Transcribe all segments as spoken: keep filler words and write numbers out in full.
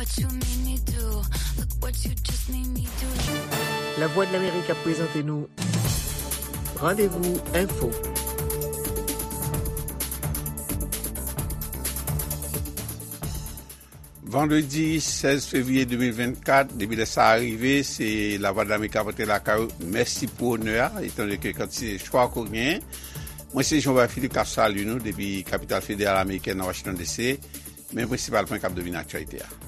What you made me do, look what you just made me do. Lavwadlamerik ap prezante nou Randevou Enfo. Vandredi sèz fevriye de mil vennkat, depi lè sa a rive, se Lavwadlamerik ap rantre lakay ou. Mèsi pou onè a, etandone ke kantite chwa ke w genyen. Mwen se Jean Philippe k ap salye nou depi kapital federal amerikèn nan Washington D C. Men prensipal pwen k ap domine aktyalite a.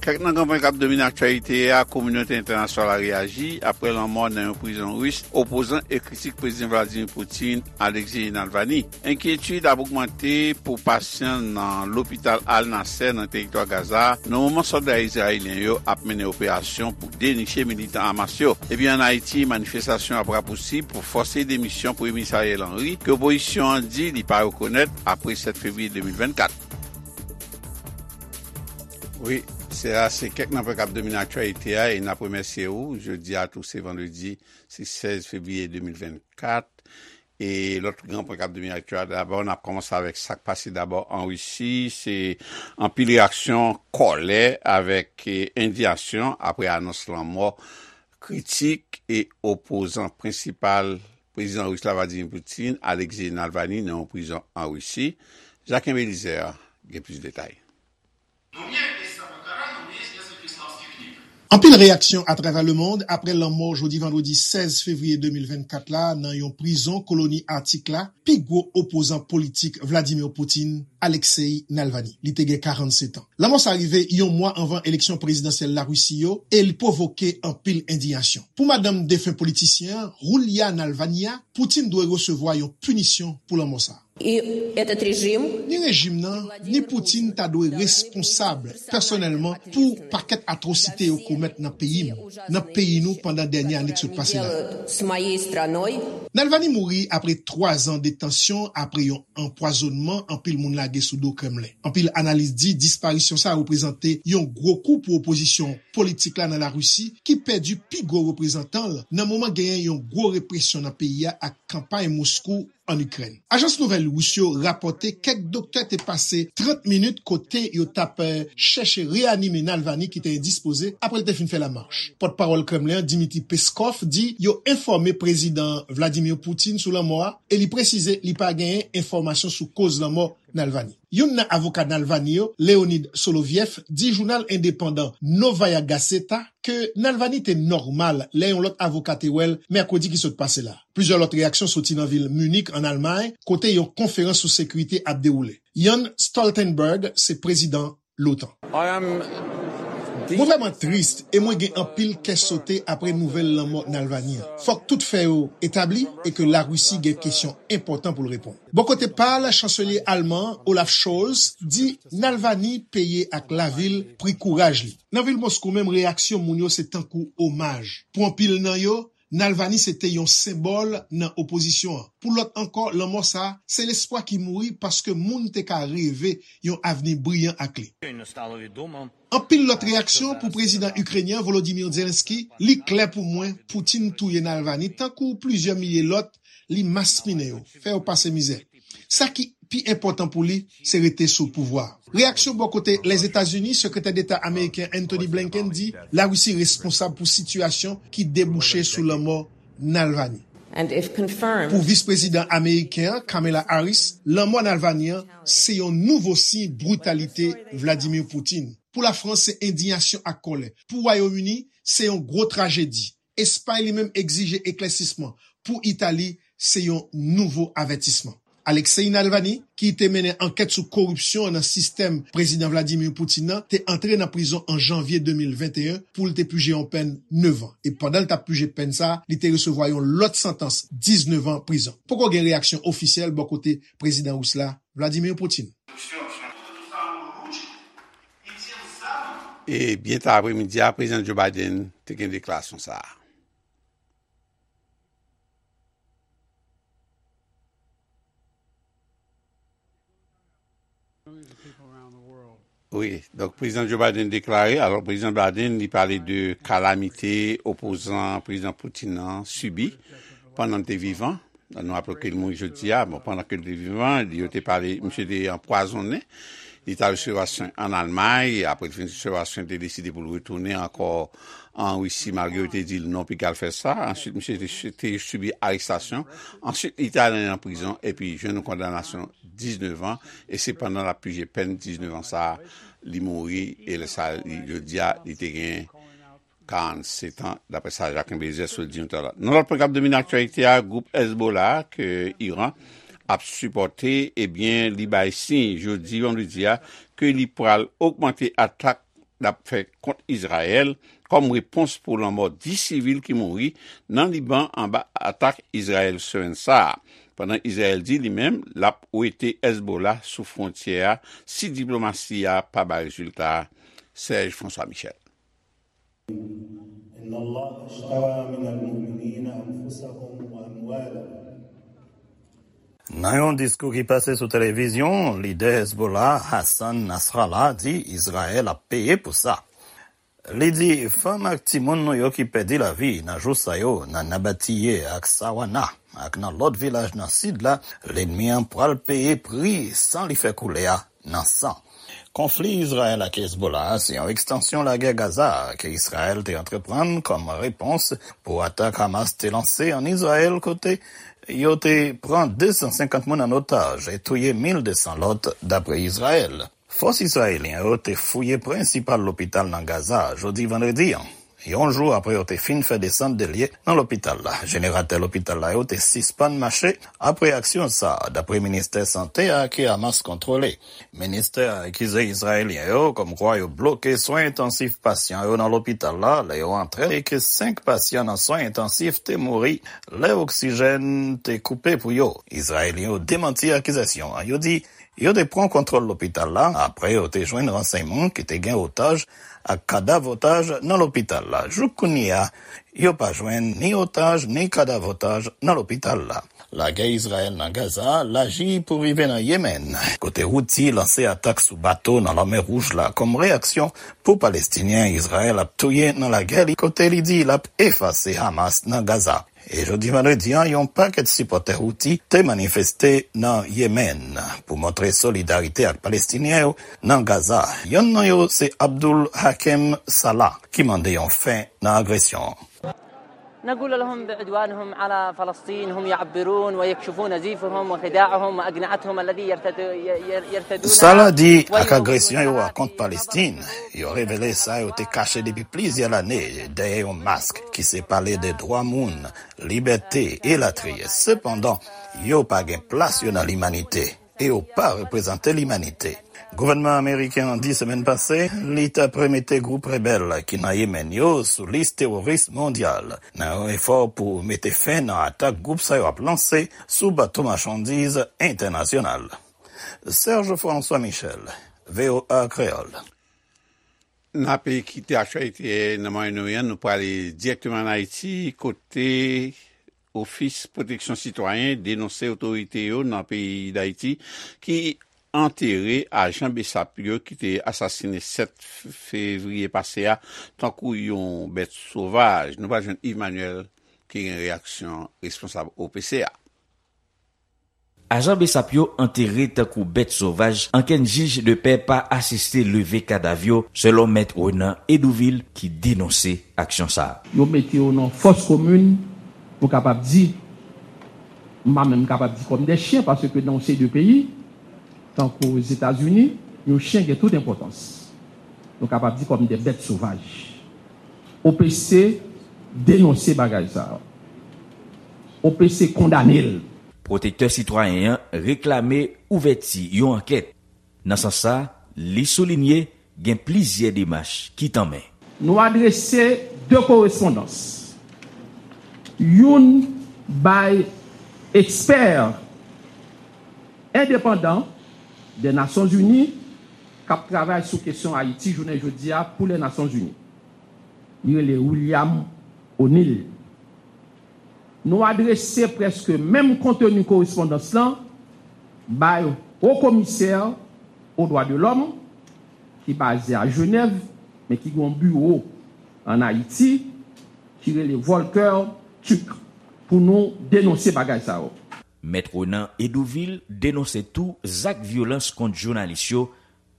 Kèk nan gran pwen k ap domine aktyalite a, kominote entènasyonal la reyaji apre lanmò nan yon prizon ris opozan e kritik Prezidan Vladimir Putin, Alexei Navalny. Enkyetid ap ogmante pou pasyan nan lopital Al Nasser nan teritwa Gaza, nan moman sòlda izrayelyen yo ap mennen operasyon pou deniche militan Hamas yo. Epi ann Ayiti, manifestasyon ap rapousib pou fòse demisyon Premye Minis Ariel Henry, ke opozisyon an di li pa rekonèt apre sèt fevriye de mil vennkat. Wi, se a, se kèk nan pwen k ap domine aktyalite a, e n ap remèsye ou. Jodi a tou, se vandredi, se sèz fevriye de mil vennkat. E lòt gran pwen k ap domine aktyalite a, dabò, n ap kòmanse avèk sa k pase dabò an Risi. Se anpil reyaksyon kòlè avèk, eh, endiyasyon apre anons lanmò kritik e opozan prensipal prezidan ris la, Vladimir Putin, Alexei Navalny, nan yon prizon an Risi. Jacques Belizaire gen plis detay. Anpil reyaksyon atravè lemond apre lanmò jodi vandredi sèz fevriye de mil vennkat la nan yon prizon koloni Atik la, pi gwo opozan politik Vladimir Putin, Alexei Navalny. Li te gen karannsèt an. Lanmò sa rive yon mwa anvan eleksyon prezidansyèl Larisi yo e li pwovoke anpil endiyasyon. Pou madanm defen politisyen an, Yulia Navalnaya, Putin dwe resevwa yon pinisyon pou lanmò sa. И этот режим Ni rejim nan, ni Putin ta dwe responsab pèsonèlman pou pakèt atwosite yo komèt nan peyi m, nan peyi nou pandan dènye ane k sot pase la. Делают с моей страной. Navalny mouri apre twa zan de tansyon apre yon anpwazonnman anpil moun lage sou do Kremlen. Anpil analis di disparisyon sa a reprezante yon gwo kou pou opozisyon politik la nan Larisi, ki pèdi pi gwo reprezantan l nan moman genyen yon gwo represyon nan peyi a ak kanpay Moskou ann Ikrèn. Ajans nouvèl ris yo rapòte kèk doktè te pase trant minit kote yo t ap, eh, chèche reyanime Navalny ki te endispoze apre l te fin fè lamach. Pòtpawòl Kremlen an, Dmitry Peskov, di yo enfòme Prezidan Vladimir Putin sou lanmò a e li presize li pa genyen enfòmasyon sou koz lanmò Navalny. Youn nan avoka Navalny yo, Leonid Solovyev, di jounal endepandan Novaya Gazeta ke Navalny te nòmal lè yon lòt avoka te wè l mèkredi ki sot pase la. Plizyè lòt reyaksyon soti nan vil Munich, ann Almay, kote yon konferans sou sekirite ap dewoule. Jens Stoltenberg se prezidan l'OTAN. I am Mwen vrèman tris e mwen gen anpil kè sote apre nouvèl lanmò Navalny an. Fòk tout fè yo etabli e ke Larisi gen kesyon enpòtan pou l reponn. Bò kote pa l, chanselye alman an, Olaf Scholz, di Navalny peye ak lavi l pri kouraj li. Nan vil Moskou menm, reyaksyon moun yo se tankou omaj. Pou anpil nan yo, Navalny se te yon senbòl nan opozisyon an. Pou lòt ankò, lanmò sa a se lespwa ki mouri paske moun te ka reve yon avni briyan ak li. Щойно стало відомо. Anpil lòt reyaksyon pou prezidan ikrenyen Volodymyr Zelensky, li klè pou mwen, Putin touye Navalny tankou plizyè milye lòt, li maspinen yo, fè yo pase mizè. Sa ki pi enpòtan pou li, se rete sou pouvwa a. Reyaksyon bò kote Lèzetazini, Sekretè Deta ameriken Antony Blinken di Larisi responsab pou sitiyasyon ki debouche sou lanmò Navalny. And if confirmed, Pou vis prezidan ameriken an, Kamala Harris, lanmò Navalny an se yon nouvo siy britalite Vladimir Putin. Pou Lafrans, se endiyasyon ak kòlè. Pou Wayòm Ini, se yon gwo trajedi. Espay li menm egzije eklèsisman. Pou Itali, se yon nouvo avètisman. Alexei Navalny, ki te mennen ankèt sou koripsyon nan sistèm Prezidan Vladimir Putin nan, te antre nan prizon an janvye de mil venteyen pou l te pije yon pèn nèf an. E pandan l t ap pije pèn sa a, li te resevwa yon lòt santans diznèf an prizon. Poko gen reyaksyon ofisyèl bò kote prezidan ris la, Vladimir Putin. E byen ta apremidi a, prezidan Joe Biden te gen deklarasyon sa a. Wi, donk prezidan Joe Biden deklare, alò prezidan Biden li pale de kalamite opozan prezidan Putin nan sibi pandan l te vivan. Nou raple ke l mouri jodi a, bon, pandan ke l te vivan, yo te pale, misye te anpwazonnen. Li t al resevwa swen ann Almay. Apre l fin resevwa swen, li te deside pou l retounen ankò an Risi, malgre yo te di l non, piga l fè sa. Answit, misye te, te sibi arestasyon. Answit, li te ale nan prizon epi jwenn yon kondanasyon diznèf an. E se pandan l ap pije pèn diznèf an sa a, li mouri. E lè sa a, li, jodi a, li te gen karannsèt an, daprè sa Jacques Bézès sot di yon talè. Nan lòt pwogram domine aktyalite a, gwoup Hezbollah ke Iran ap sipòte, ebyen, li bay siy jodi vandredi a ke li pral ogmante atak l ap fè kont Izrayèl kòm repons pou lanmò dis sivil ki mouri nan Liban anba atak Izrayèl semèn sa a. Pandan Izrayèl di li menm l ap wete Hezbollah sou fwontyè a si diplomasi a pa bay rezilta. Serge François Michel. إن الله اشترى من المؤمنين أنفسهم وأموالهم. Nan yon diskou ki pase sou televizyon, lidè Hezbollah, Hassan Nasrallah, di Izrayèl ap peye pou sa. Li di, fanm ak timoun nou yo ki pèdi lavi nan jou sa yo nan Nabatiye ak Sawana ak nan lòt vilaj nan sid la, lènmi an pral peye pri san li fè koule a nan san. Konfli Izrayèl ak Hezbollah a se yon ekstansyon lagè Gaza a ke Izrayèl te antreprann kòm repons pou atak Hamas te lanse ann Izrayèl, kote yo te pran de san senkant moun ann otaj e touye mil de san lòt, dapre Izrayèl. Fòs izrayelyen yo te fouye prensipal lopital nan Gaza a jodi vandredi an, yon jou apre yo te fin fè desant de lye nan lopital la. Jeneratè lopital la yo te sispann mache apre aksyon sa a, dapre ministè sante a ke Hamas kontwole. Ministè a akize izrayelyen yo kòmkwa yo bloke swen entansif pasyan yo nan lopital la lè yo antre e ke senk pasyan nan swen entansif te mouri lè oksijèn te koupe pou yo. Izrayelyen yo demanti akizasyon an. Yo di yo te pran kontwòl lopital la apre yo te jwenn ransèyman ke te gen otaj ak kadav otaj nan lopital la. Jouk kounye a, yo pa jwenn ni otaj ni kadav otaj nan lopital la. Lagè Izrayèl nan Gaza a laji pou rive nan Yemèn, kote Houthi lanse atak sou bato nan Lanmè Wouj la kòm reyaksyon pou Palestinyen Izrayèl ap touye nan lagè li, kote li di l ap efase Hamas nan Gaza. E jodi vandredi an, yon pakèt sipòtè Houthi te manifeste nan Yemèn pou montre solidarite ak Palestinyen yo nan Gaza. Yonn nan yo se Abdul Hakem Salah, ki mande yon fen nan agresyon an. نقول لهم بعدوانهم على فلسطين هم يعبرون ويكشفون زيفهم وخداعهم وأقنعتهم الذي يرتد-، ي-، ي-، يرتدونها. Salah di, ak agresyon yo a kont Palestin, yo revele sa yo te kache depi plizyè lane dèyè yon mask ki se pale de dwa moun, libète, elatriye. Sepandan, yo pa gen plas yo nan limanite e yo pa reprezante limanite. Gouvènman ameriken an di semèn pase li t ap remete gwoup rebèl ki nan Yemèn yo sou lis teworis mondyal, nan yon efò pou mete fen nan atak gwoup sa yo ap lanse sou bato machandiz entènasyonal. Serge François Michel, V O A Kreyòl. N ape kite aktyalite nan Mwayen Oryan, nou prale dirèkteman ann Ayiti, kote Ofis Pwoteksyon Sitwayen denonse otorite yo nan peyi Dayiti ki antere ajan besap yo ki te asasine sèt fevriye pase a tankou yon bèt sovaj. Nou pral jwenn Yves Manuel ki gen reyaksyon responsab O P C a. Ajan besap yo antere tankou bèt sovaj, ankenn jij de pè pa asiste leve kadav yo, selon mèt Renan Edouvil ki denonse aksyon sa a. Yo mete yo nan fòs komin, nou kapab di, m pa menm kapab di kòm de chen, paske nan yon seri de peyi, tankou Ozetazini, yon chen gen tout enpòtans. Nou kapab di kòm de bèt sovaj. O P C denonse bagay sa a. O P C kondane l. Pwotektè sitwayen an reklame ouvèti yon ankèt. Nan sans sa, li soulinye gen plizyè demach ki tanmen. Nou adrese de korespondans. Youn bay ekspè endepandan de Nasyonzini k ap travay sou kesyon Ayiti jounen jodi a pou Lènasyonzini. Li rele William O'Neill. Nou adrese prèske menm konteni korespondans lan bay Wo Komisè o Dwa de Lòm, ki baze a Jenèv, men ki gen yon biwo ann Ayiti, ki rele Volker Türk, pou nou denonse bagay sa yo. Mèt Renan Edouvil denonse tou zak vyolans kont jounalis yo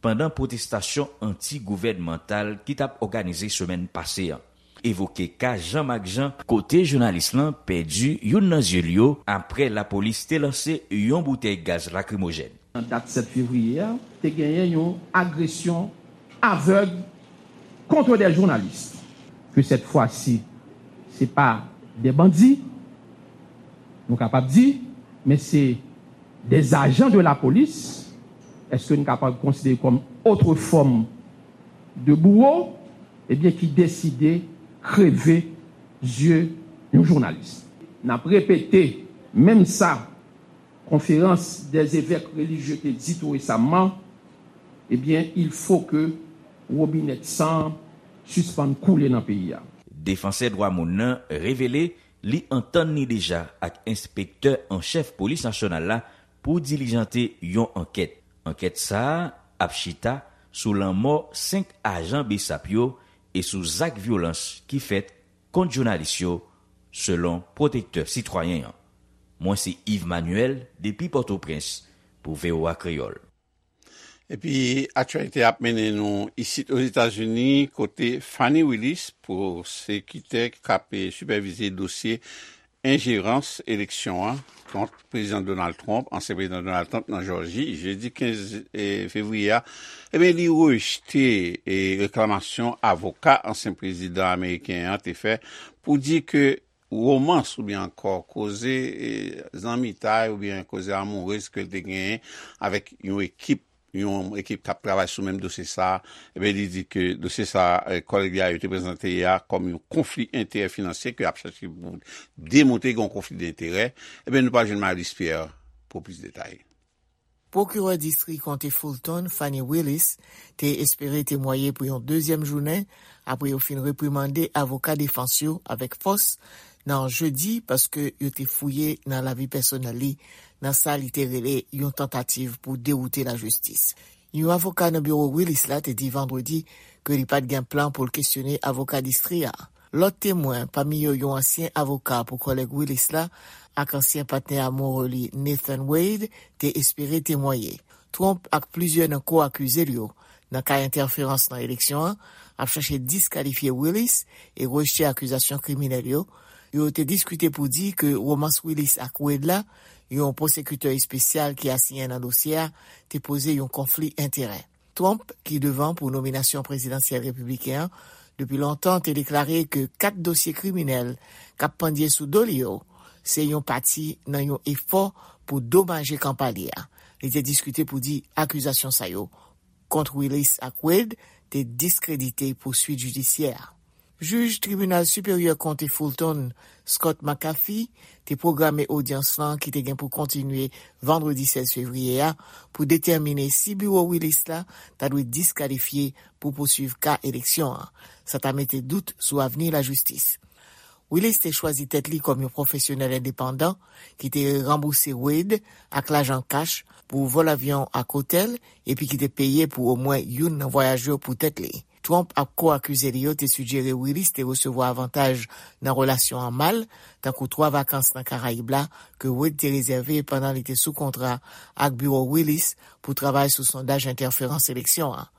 pandan pwotestasyon anti-gouvènmantal ki t ap òganize semèn pase an. Evoke ka Jean Marc Jean, kote jounalis lan pèdi youn nan zye l yo apre lapolis te lanse yon boutèy gaz lakrimojèn. Nan dat sèt fevriye a, te genyen yon agresyon avèg contre des journalistes. Que cette fois-ci, c'est pas des bandits, nou kapab di, men se des agents de la police. Èske nou kapab konsidere kòm otre fòm de bouwo, ebyen, ki deside kreve zye yon jounalis? N ap repete menm sa konferans dèzevèk relijye te di tou resaman, ebyen, il faut que wobinèt san sispann koule nan peyi a. Defansè dwa moun nan revele li antann li deja ak enspektè an chèf polis nasyonal la pou dilijante yon ankèt. Ankèt sa a ap chita sou lanmò senk ajan BSAP yo e sou zak vyolans ki fèt kont jounalis yo, selon pwotektè sitwayen an. Mwen se Yves Manuel depi Pòtoprens pou V O A Kreyòl. Epi aktyalite ap mennen nou isit Ozetazini, kote Fani Willis, pwosekitè k ap sipèvize dosye enjerans eleksyon an kont Prezidan Donald Trump, ansyen Prezidan Donald Trump nan Jòji, jedi kenz fevriye a, ebyen, li rejte reklamasyon avoka ansyen prezidan ameriken an te fè pou di ke womans oubyen ankò koze zanmitay oubyen koze amourez ke l te genyen avèk yon ekip yon ekip k ap travay sou menm dosye sa a, ebyen, li di ke dosye sa a, kòlèg li a yo te prezante a kòm yon konfli enterè finansye ke y ap chache pou demontre gen yon konfli denterè. Ebyen, nou pral jwenn Marie-Luce Pierre pou plis detay. Pwokirè distri konte Fulton, Fani Willis, te espere temwaye pou yon dezyèm jounen apre yo fin reprimande avoka defans yo avèk fòs nan jedi paske yo te fouye nan lavi pèsonèl li nan sa li te rele yon tantativ pou dewoute lajistis. Yon avoka nan biwo Willis la te di vandredi ke li pa t gen plan pou l kesyone avoka distri a. Lòt temwen, pami yo yon ansyen avoka pou kòlèg Willis la ak ansyen patnè amoure li Nathan Wade, te espere temwaye. Trump ak plizyè nan ko-akize l yo nan ka entèferans nan eleksyon an ap chache diskalifye Willis e rejte akizasyon kriminèl yo. Yo te diskite pou di ke womans Willis ak Wade la, yon pwosekitè espesyal ki asiyen nan dosye a, te poze yon konfli enterè. Trump, ki devan pou nominasyon prezidansyèl repibliken an, depi lontan te deklare ke kat dosye kriminèl k ap pandye sou do li yo se yon pati nan yon efò pou domaje kanpay li a. Li te diskite pou di akizasyon sa yo kont Willis ak Wade te diskredite pouswit jidisyè a. Jij Tribinal Siperyè Konte Fulton, Scott McAfee, te pwograme odyans lan ki te gen pou kontinye vandredi sèz fevriye a pou detèmine si biwo Willis la ta dwe diskalifye pou pouswiv ka eleksyon an. Sa ta mete dout sou avni lajistis. Willis te chwazi tèt li kòm yon pwofesyonèl endepandan ki te ranbouse Wade ak lajan kach pou vòl avyon ak otèl epi ki te peye pou omwen youn nan vwayaj yo pou tèt li. Trump ak ko-akize li yo te sijere Willis te resevwa avantaj nan relasyon an mal, tankou twa vakans nan Karayib la ke Wade te rezève pandan li te sou kontra ak biwo Willis pou travay sou sondaj entèferans eleksyon an.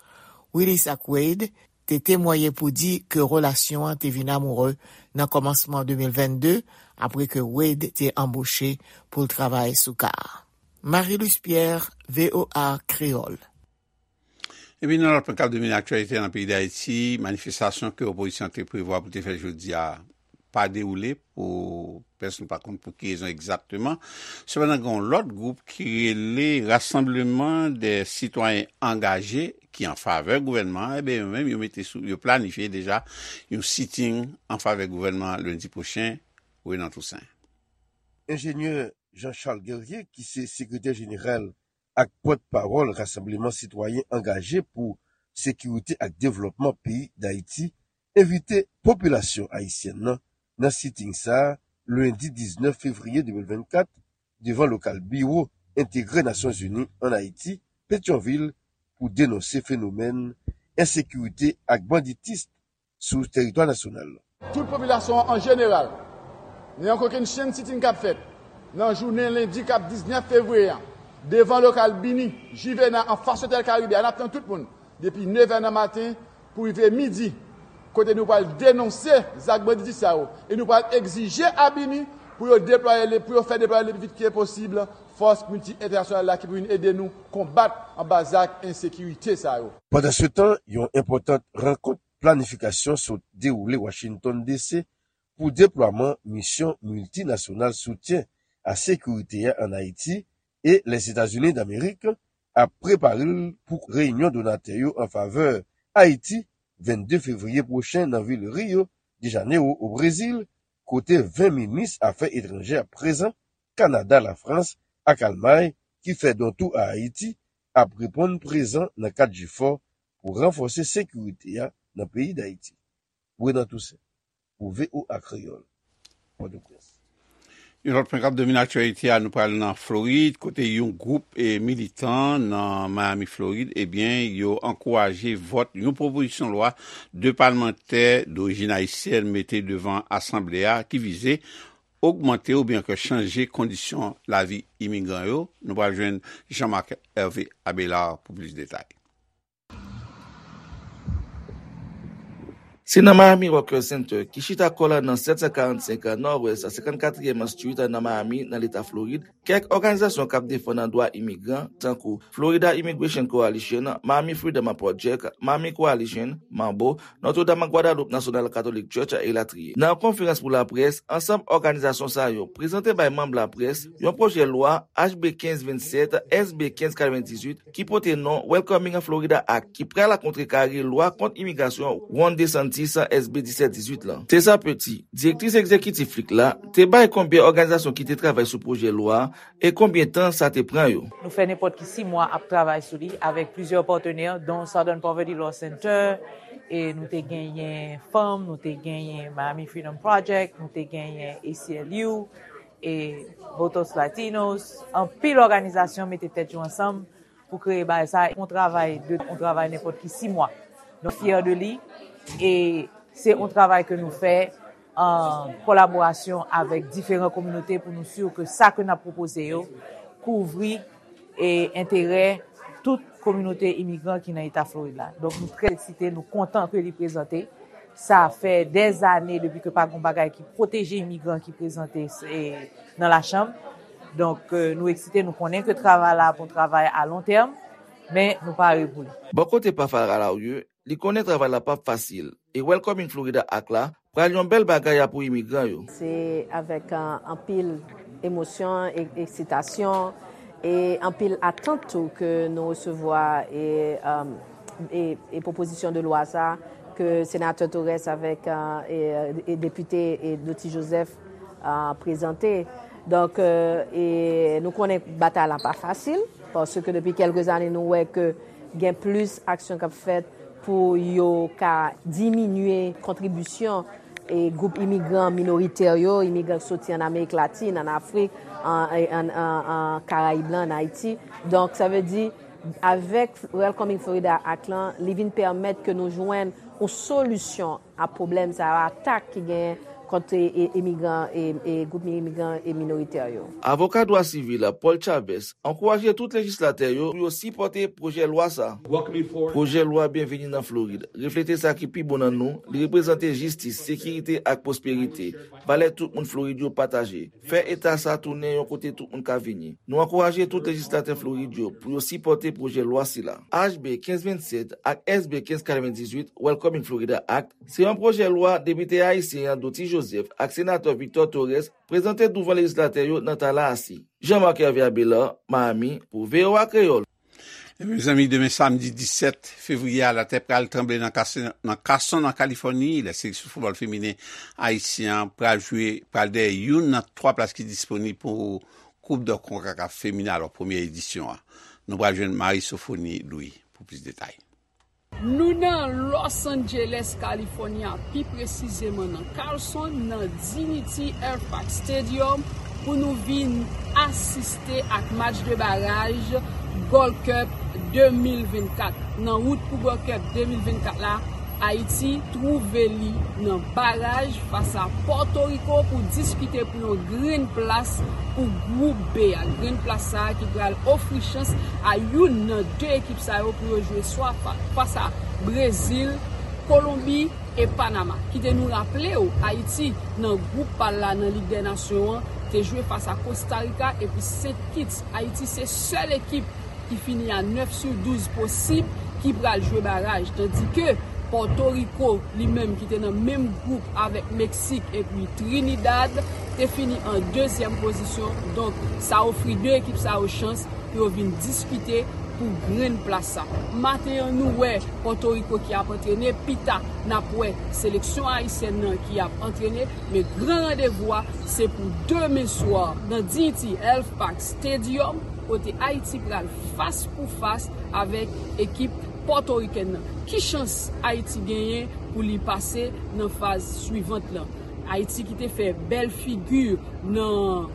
Willis ak Wade te temwaye pou di ke relasyon an te vin amoure nan kòmansman de mil vennde, apre ke Wade te anboche pou l travay sou ka a. Marie-Luce Pierre, V O A Kreyòl. Epi nan lòt pwen k ap domine aktyalite nan peyi Dayiti, manifestasyon ke opozisyon an te prevwa pou te fè jodi a pa dewoule pou pèsonn pa konn pou ki rezon egzakteman. Sepandan, gen yon lòt gwoup ki rele Rassemblement des Citoyens Engagés ki an favè gouvènman an, ebyen, yo menm, yo mete sou, yo planifye deja yon sitting an favè gouvènman an lendi pwochen, Renan Toussaint. Enjenyè Jean Charles Guerrier, ki se sekretè jeneral ak pòtpawòl Rassemblement Citoyen Angaje pou Sekirite ak Devlòpman peyi Dayiti, envite popilasyon ayisyèn nan nan sitting sa a, lendi diznèf fevriye de mil vennkat, devan lokal biwo entegre Nasyonzini ann Ayiti, Petyonvil, pou denonse fenomèn ensekirite ak banditis sou teritwa nasyonal. Tout popilasyon an an jeneral, nan yon kokennchenn sitting k ap fèt nan jounen lendi k ap diznèf fevriye a, Devan lokal Bini, Jivena, anfas Otèl Karibe a, n ap tann tout moun depi nevè nan maten pou rive midi, kote nou pral denonse zak banditis sa yo e nou pral egzije a Bini pou yo deplwaye, pou yo fè deplwaye le pli vit ke posib fòs milti entènasyonal la ki pou vin ede nou konbat anba zak ensekirite sa yo. Pandansetan, yon enpòtan rankont planifikasyon sot dewoule Washington D C pou deplwaman misyon miltinasyonal soutyen a sekirite a ann Ayiti, e Lèzetazini Damerik ap prepare l pou reyinyon donatè yo an favè Ayiti vennde fevriye pwochen nan vil Rio de Janeiro, o Brezil, kote ven minis afè etranjè ap prezan, Kanada, Lafrans ak Almay, ki fè don tou a Ayiti, ap reponn prezan nan kad jefò pou ranfòse sekirite a nan peyi Dayiti. Renan Toussaint, pou V O A Kreyòl, Pòtoprens. Yon lòt pwen k ap domine aktyalite a, nou pral nan Florid, kote yon gwoup e militan nan Miami, Florid, ebyen, yo ankouraje vòt yon pwopozisyon lwa de palmantè dorijin ayisyèn mete devan asanble a ki vize ogmante oubyen ke chanje kondisyon lavi imigran yo. Nou pral jwenn Jean-Marc Hervé Abelard pou plis detay. Se nan Miami Worker Center, ki chita kò l nan sèt san karannsenk Nòdwès senkannkatriyèm Street nan Miami, nan Leta Florid, kèk òganizasyon k ap defann dwa imigran, tankou Florida Immigration Coalition, Miami Freedom Project, Miami Coalition, Mambo, Notre Dame Guadalupe National Catholic Church, elatriye. Nan yon konferans pou laprès, ansanm òganizasyon sa yo prezante bay manm laprès yon pwojè lwa H B kenz vennsèt, S B kenz katrevendizuit, ki pote non Welcoming Florida Act, ki pral kontrekare lwa kont imigrasyon Ron DeSantis, S B disèt dizuit la. Tessa Petit, direktris egzekitif FLIC la, te bay konbyen òganizasyon ki te travay sou pwojè lwa a e konbyen tan sa te pran yo. Nou fè nenpòt ki sis mwa ap travay sou li avèk plizyè patnè, dont Southern Poverty Law Center, e nou te genyen fanm, nou te genyen Miami Freedom Project, nou te genyen A C L U, e Votos Latinos, anpil òganizasyon mete tèt yo ansanm pou kreye bagay sa, yon travay de, yon travay nenpòt ki sis mwa. Nou fyè de li, e se yon travay ke nou fè an kolaborasyon avèk diferan kominote pou nou si ke sa ke n ap pwopoze yo kouvri e enterè tout kominote imigran ki nan Eta Florid la. Donk, nou trè eksite, nou kontan ke li prezante. Sa fè dèzane depi ke pa gen bagay ki pwoteje imigran ki prezante, e, nan lachanm. Donk, e, nou eksite, nou konnen ke travay la ap yon travay a lon tèm, men nou pare pou li. Bò kote pa Farah Laurier, li konnen travay la p ap fasil, e Welcoming Florida Act la pral yon bèl bagay a pou imigran yo. Se avèk, e, anpil emosyon, e, eksitasyon, e anpil atant tou ke nou resevwa, e, e, e, e pwopozisyon de lwa sa ke Senatè Torres avèk, e, e, e Depite, e, Dottie Joseph, e, prezante. Donk, e, e nou konnen batay la pa fasil, paske depi kèlke zane nou wè ke gen plis aksyon k ap fèt pou yo ka diminye kontribisyon e gwoup imigran minoritè yo, imigran ki soti ann Amerik Latin, ann Afrik, an, e, ann, an, an Karayib lan, ann Ayiti. Donk, sa vle di, avèk Welcoming Florida Act lan, li vin pèmèt ke nou jwenn yon solisyon a pwoblèm sa yo, atak ki genyen kont, e, e, imigran, e, e gwoup imigran e minoritè yo. Avoka dwa sivil Paul Chavez ankouraje tout lejislatè yo pou yo sipòte pwojè lwa sa. Pwojè lwa Byenveni nan Florid reflete sa ki pi bon nan nou, li reprezante jistis, sekirite ak pwosperite, valè tout moun Florid yo pataje, fè eta sa tounen yon kote tout moun ka vini. Nou ankouraje tout lejislatè Florid yo pou yo sipòte pwojè lwa sila. H B kenz vennsèt ak S B kenz katrevendizuit, Welcoming Florida Act, se yon pwojè lwa depite ayisyen an Dottie Joseph ak senatè Victor Torres prezante douvan lejislatè yo nan Tallahassee. Jean-Marc Hervé Abelard, Miami, pou V O A Kreyòl. Mezanmi, demen samdi disèt fevriye a, latè pral tranble nan Kas-, nan Carson, an Kalifòni, lè seleksyon foutbòl feminen ayisyen an pral jwe, pral dèyè youn nan twa plas ki disponib pou Koup de konkakaf feminen, alò, premyè edisyon an. Nou pral jwenn Marie Sophonie Louis pou plis detay. Nou nan Los Angeles, California, pi presizeman nan Carson, nan Dignity Airpark Stadium, pou nou vin asiste ak match de baraj Gold Cup de mil vennkat. Nan wout pou Gold Cup de mil vennkat la, Ayiti twouve li nan baraj fas a Pòtoriko pou diskite pou yon grenn plas pou gwoup B a. Grenn plas sa a ki pral ofri chans a youn nan de ekip sa yo pou yo jwe swa fa- fas a Brezil, Kolonbi e Panama. Kite nou raple w, Ayiti nan gwoup pa l la nan Lig dè Nasyon an te jwe fas a Kosta Rika epi Sent Kits. Ayiti se sèl ekip ki fini a nèf sou douz posib ki pral jwe baraj, tandike Pòtoriko, li menm ki te nan menm gwoup avèk Meksik epi Trinidad, te fini an dezyèm pozisyon. Donk, sa ofri de ekip sa yo chans pou yo vin diskite pou grenn plas sa. Maten an, nou wè Pòtoriko ki ap antrene, pita n ap wè seleksyon ayisyèn nan ki ap antrene, men gran randevou a se pou demen swa nan Dignity Health Park Stadium, kote Ayiti pral fas pou fas avèk ekip pòtorikèn nan. Ki chans Ayiti genyen pou li pase nan faz swivant lan? Ayiti ki te fè bèl figi nan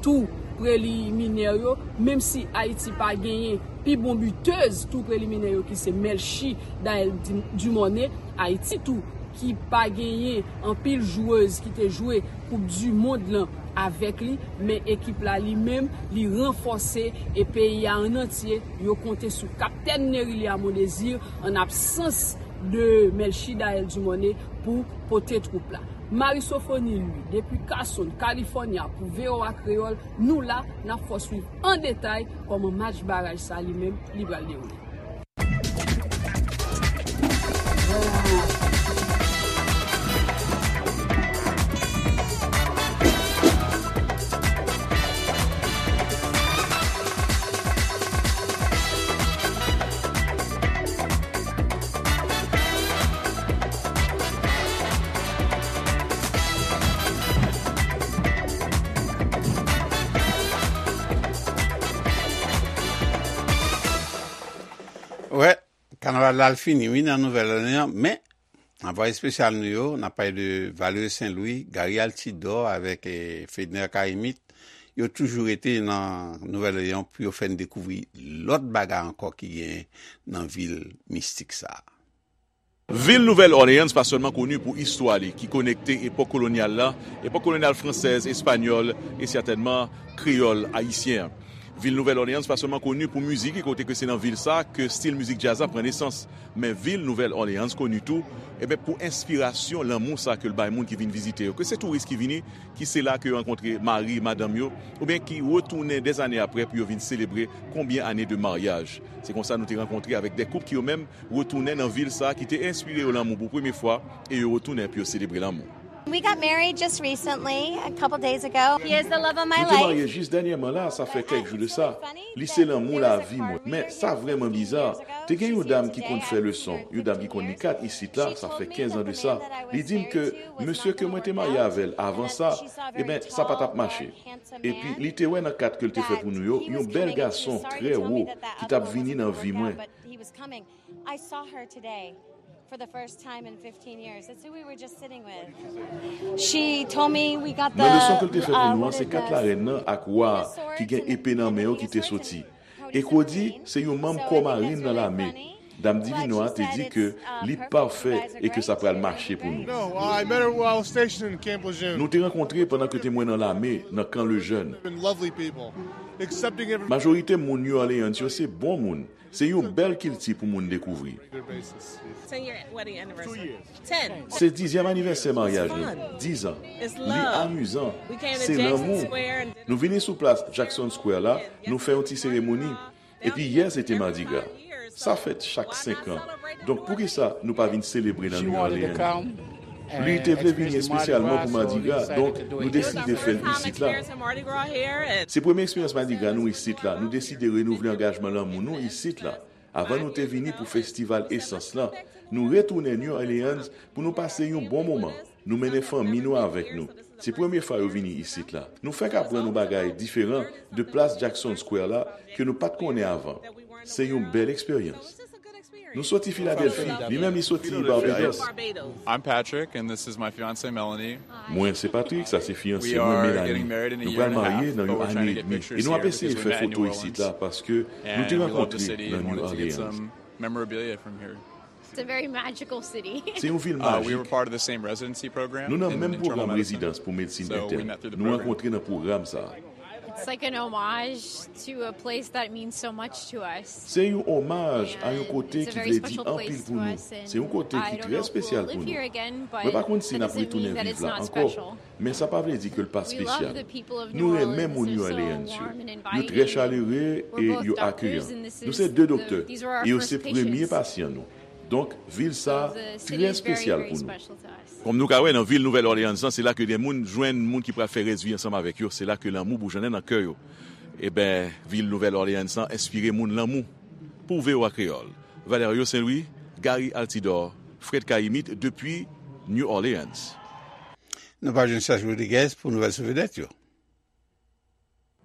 tou preliminè yo, menm si Ayiti pa genyen pi bon bitèz tou preliminè yo ki se Melchie Daelle Dumornay, Ayiti tou ki pa genyen anpil jwèz ki te jwe Koup di mond lan avèk li, men ekip la li menm, li ranfòse e peyi a an antye, yo konte sou kaptèn Nerilia Mondésir an absans de Melchie Daelle Dumornay pou pote twoup la. Marie Sophonie Louis, depi Carson, California, pou V O A Kreyòl, nou la, n ap fè w swiv an detay kòman match baraj sa li menm, li pral dewoule. Wè, kanaval la al fini, wi, nan Nouvèl Òleyàn, men anvwaye espesyal nou yo, n ap pale de Valery Saint Louis, Gary Altidor avèk, eh, Fedner Karimit, yo toujou rete nan Nouvèl Òleyàn pou yo fè n dekouvri lòt bagay ankò ki genyen nan vil mistik sa a. Vil Nouvèl Òleyans pa sèlman koni pou istwa li, ki konekte epòk kolonyal la, epòk kolonyal fransèz, espanyòl e sètènman kreyòl ayisyen an. Vil Nouvèl Òleyans pa sèlman koni pou mizik li, kote ke se nan vil sa ke stil mizik djaz la pran nesans. Men vil Nouvèl Òleyans koni tou, e ben, pou enspirasyon lanmou sa ke l bay moun ki vin vizite yo. Ke se touris ki vini, ki se la ke yo rankontre mari, madanm yo, oubyen ki retounen dèzane apre pou yo vin selebre konbyen ane de maryaj. Se konsa nou te rankontre avèk de koup ki yo menm retounen nan vil sa ki te enspire yo lanmou pou premye fwa e yo retounen pou yo selebre lanmou. We got married just recently, a couple days ago. He is the love of my life. Nou te marye jis dènyèman la, sa fè kèk jou de sa. Li se lanmou lavi mwen. Men sa vrèman biza. Te gen yon dam ki konn fè leson, yon dam ki konn li kat isit la, sa fè kenz an de sa. Li di m ke mesye ke mwen te marye avè l avan sa, e ben, sa pa t ap mache. Epi li te wè nan kat ke l te fè pou nou yo, yon bèl gason trè wo ki t ap vini nan vi mwen. I saw her today for the first time in fifteen years. That's who we were just sitting with. She told me we got the. Nan leson ke l te fè pou nou an, se kat larèn nan ak wa a ki gen epe nan men yo ki te soti. E Cody se yon manm kò marin nan lame. Dam Divino a te di ke li pafè e ke sa pral mache pou nou. No, I met her while stationed in Camp Lejeune. Nou te rankontre pandan ke te mwen nan lame, nan Kan Lejèn. And lovely people. Accepting every. Majorite moun New Orleans yo se bon moun. Se yon bèl kilti pou moun dekouvri. Regular basis. Ten year wedding anniversary. Ten. Se dizyèm anivèsè maryaj nou. Diz an. Li amizan. Se lanmou. Nou vini sou plas Jackson Square la, nou fè yon ti seremoni. Epi yè se te Mardi Gras. Sa fèt chak senk an. Donk poukisa nou pa vin selebre nan New Orleans? Li te vle vini espesyalman pou Mardi Gras, donk nou deside fè l isit la. Se premye eksperyans Mardi Gras nou isit la. Nou deside renouvle angajman lanmou nou isit la. Avan nou te vini pou festival Esans lan, nou retounen New Orleans pou nou pase yon bon moman. Nou mennen fanmi nou avèk nou. Se premye fwa yo vini isit la. Nou fèk aprann yon bagay diferan de plas Jackson Square la ke nou pa t konnen avan. Se yon bèl eksperyans. Nou soti Filadèlfi, li menm li soti Barbados. I'm Patrick, and this is my fiancée, Melanie. Mwen se Patrick, sa se fiyanse mwen, Melanie. Nou pral marye nan yon ane edmi. E nou ap eseye fè foto isit la paske nou te rankontre nan New Orleans. Memorabilia from here. It's a very magical city. Se yon vil majik. Nou nan menm pwogram rezidans pou medsin entèn. Nou rankontre nan pwogram sa a. It's like an homage to a place that means so much to us. Se yon omaj a yon kote ki vle di anpil pou nou. Se yon kote ki trè espesyal pou nou. Mwen pa konn si n ap retounen viv la ankò, men sa pa vle di ke l pa espesyal. Nou renmen moun New Orleans yo. Yo trè chalere e yo akeyan. Nou se de doktè e yo se premye pasyan nou. Donk, vil sa a trè espesyal pou nou. Kòm nou ka wè nan vil Nouvèl Òleyans lan, se la ke de moun jwenn moun ki pral fè rès vi ansanm avèk yo. Se la ke lanmou boujonnen nan kè yo. Eben, vil Nouvèl Òleyans lan enspire moun lanmou. Pou V O A Kreyòl, Valerio Saint-Louis, Gary Altidor, Fred Cayimite, depi New Orleans. Nou pral jwenn Serge Rodriguez pou nouvèl sou vedèt yo.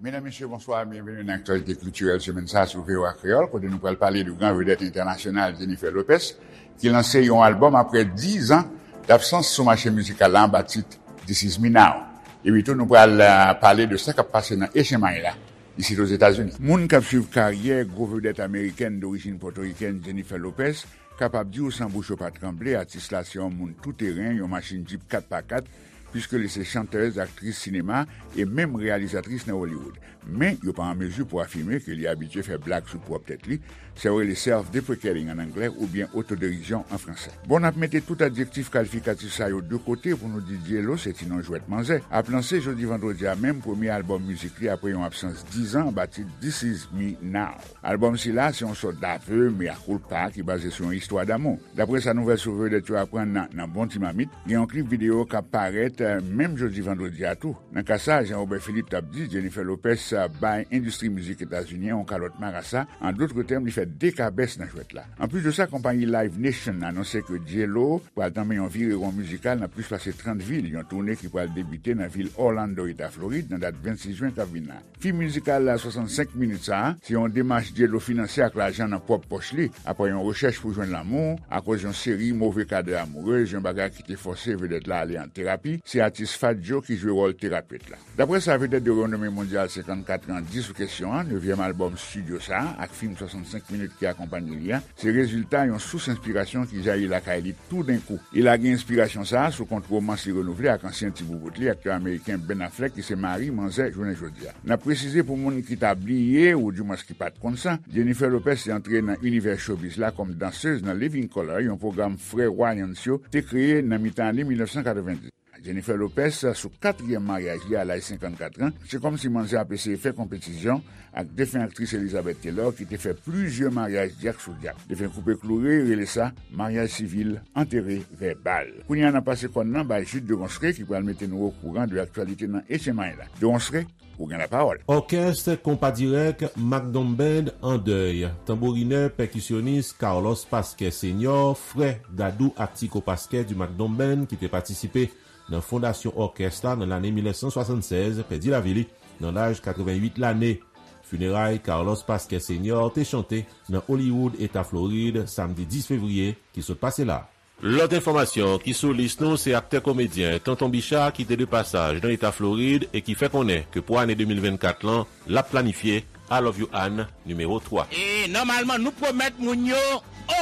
Medam, mesye, bonswa, byenveni nan aktyalite kiltirèl semèn sa a sou V O A Kreyòl, kote nou pral pale de gran vedèt entènasyonal Jennifer Lopez, ki lanse yon albòm apre diz an dabsans sou mache mizikal la anba tit This Is Me Now. Epi tou, nou pral, euh, pale de sa k ap pase nan H M I la, isit Ozetazini. Moun k ap swiv karyè gwo vedèt amerikèn dorijin pòtorikèn Jennifer Lopez kapab di w san bouch yo pa tranble, atis la se yon moun touteren, yon machin djip kat pa kat, piske li se chantèz, aktris sinema e menm reyalizatris nan Hollywood. Men, yo pa an mezi pou afime ke li abitye fè blag sou pwòp tèt li, sa yo rele self-deprecating an anglè, oubyen otoderizyon an fransè. Bon, n ap mete tout adjektif kalifikatif sa yo de kote pou nou di J-Lo se ti non jwèt manzè ap lanse jodi vandredi a menm premye albòm mizik li apre yon absans diz an anba tit This Is Me Now. Albòm sila se yon sòt d'aveu mea culpa ki baze sou yon istwa damou. Daprè sa nouvèl sou vedèt yo aprann nan, nan bon ti mamit, gen yon klip videyo k ap parèt, eh, menm jodi vandredi a tou. Nan ka sa, Jean Robert Philippe t ap di, Jennifer Lopez, eh, bay endistri mizik etazini an yon kalòt marasa, an dòt tèm, li fè de kabès nan jwèt la. Anplis de sa, konpayi Live Nation anonse ke J-Lo pral tanmen yon virewon mizikal nan plis pase trant vil, yon toune ki pral debite nan vil Orlando, eta Florid, nan dat vennsis jen k ap vin la. Fim mizikal la swasannsenk minit sa a, se yon demach J-Lo finanse ak lajan nan pwòp pòch li, apre yon rechèch pou jwenn lanmou, akoz yon seri move kadè amourez, yon bagay ki te fòse vedèt la ale an terapi, se atis Fat Joe ki jwe wòl terapet la. Daprè sa vedèt de renome mondyal senkannkat an di sou kesyon an, nevyèm albòm estidyo sa a, ak fim swasannsenk minit ki akonpanye li a, se rezilta yon sous enspirasyon ki jayi lakay li toudenkou. E lage enspirasyon sa a sou kont womans li renouvle ak ansyen ti boubout li, aktè ameriken Ben Affleck, ki se mari manzè jounen jodi a. N ap presize pou moun ki ta bliye, oudimwens ki pa t konn sa, Jennifer Lopez te antre nan inivè showbiz la kòm dansez nan Living Colour, yon pwogram frè Wayans yo te kreye nan mitan ane mil nèf san katrevenndis. Jennifer Lopez, sou katriyèm maryaj li a laj senkannkat an, se kòmsi manzè ap eseye fè konpetisyon ak defen aktris Elizabeth Taylor, ki te fè plizyè maryaj dyak sou dyak. Defen koupe kloure rele sa maryaj sivil, antere vèbal. Kounye a, n ap pase kòn nan bay Jude de Ronsre, ki pral mete nou okouran de aktyalite nan H M I la. De Ronsre, ou gen lapawòl. Òkès Konpa Dirèk Macdon Band an dèy. Tanbourinè, pèkisyonis Carlos Pasquet Senior, frè Dadou ak Tico Pasquet du Macdon Band, ki te patisipe nan fondasyon òkès la nan lane mil nèf san swasannsèz, pèdi lavi li nan laj katreventuit lane. Fineray Carlos Pasquet Senior te chante nan Hollywood, eta Florid, samdi dis fevriye ki sot pase la. Lòt enfòmasyon ki sou lis nou, se aktè komedyen Tonton Bicha ki te de pasaj nan eta Florid e ki fè konnen ke pou ane de mil vennkat lan, l ap planifye I Love You Ann nimewo twa. E nòmalman, nou pwomèt moun yo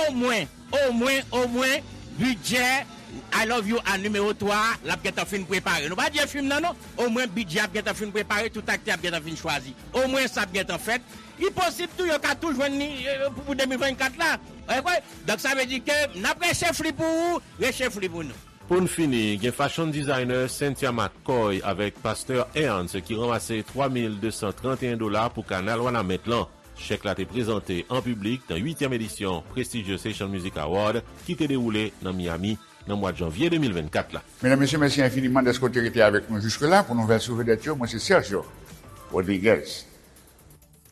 omwen, omwen, omwen, bidjè I Love You Ann nimewo twa a, l ap gentan fin prepare. Nou pa di e fim nan non, omwen bidjè ap gentan fin prepare, tout aktè ap gentan fin chwazi. Omwen sa ap gentan fèt. Li posib tou yo ka tou jwenn li, e, pou, pou de mil vennkat la. Ou kwè? Donk sa vle di ke n ap rechèf li pou ou, rechèf li pou nou. Pou n fini, gen fashion designer Cynthia McCoy avèk pastè Ernst ki ranmase twa mil de san trannteyen dola pou kanal Wanament lan. Chèk la te prezante an piblik nan uityèm edisyon Prestigious Haitian Music Award ki te dewoule nan Miami nan mwa janvye de mil vennkat la. Medam, mesye, mèsi enfiniman dèske w te rete avèk nou jiske la pou nouvèl sou vedèt yo. Mwen se Sergio Rodriguez.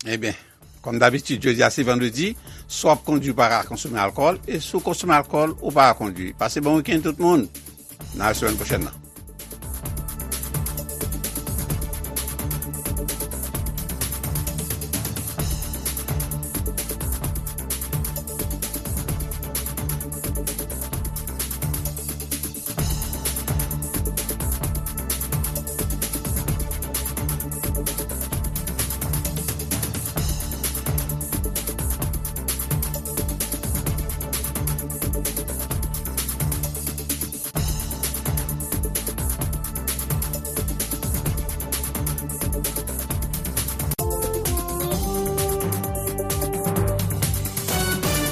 Ebyen, kòm dabitid, jodi a se vandredi, si w ap kondui, pa ka konsome alkòl, e si w konsome alkòl, ou pa ka kondui. Pase bon wikenn tout moun. N a wè semèn pwochèn nan.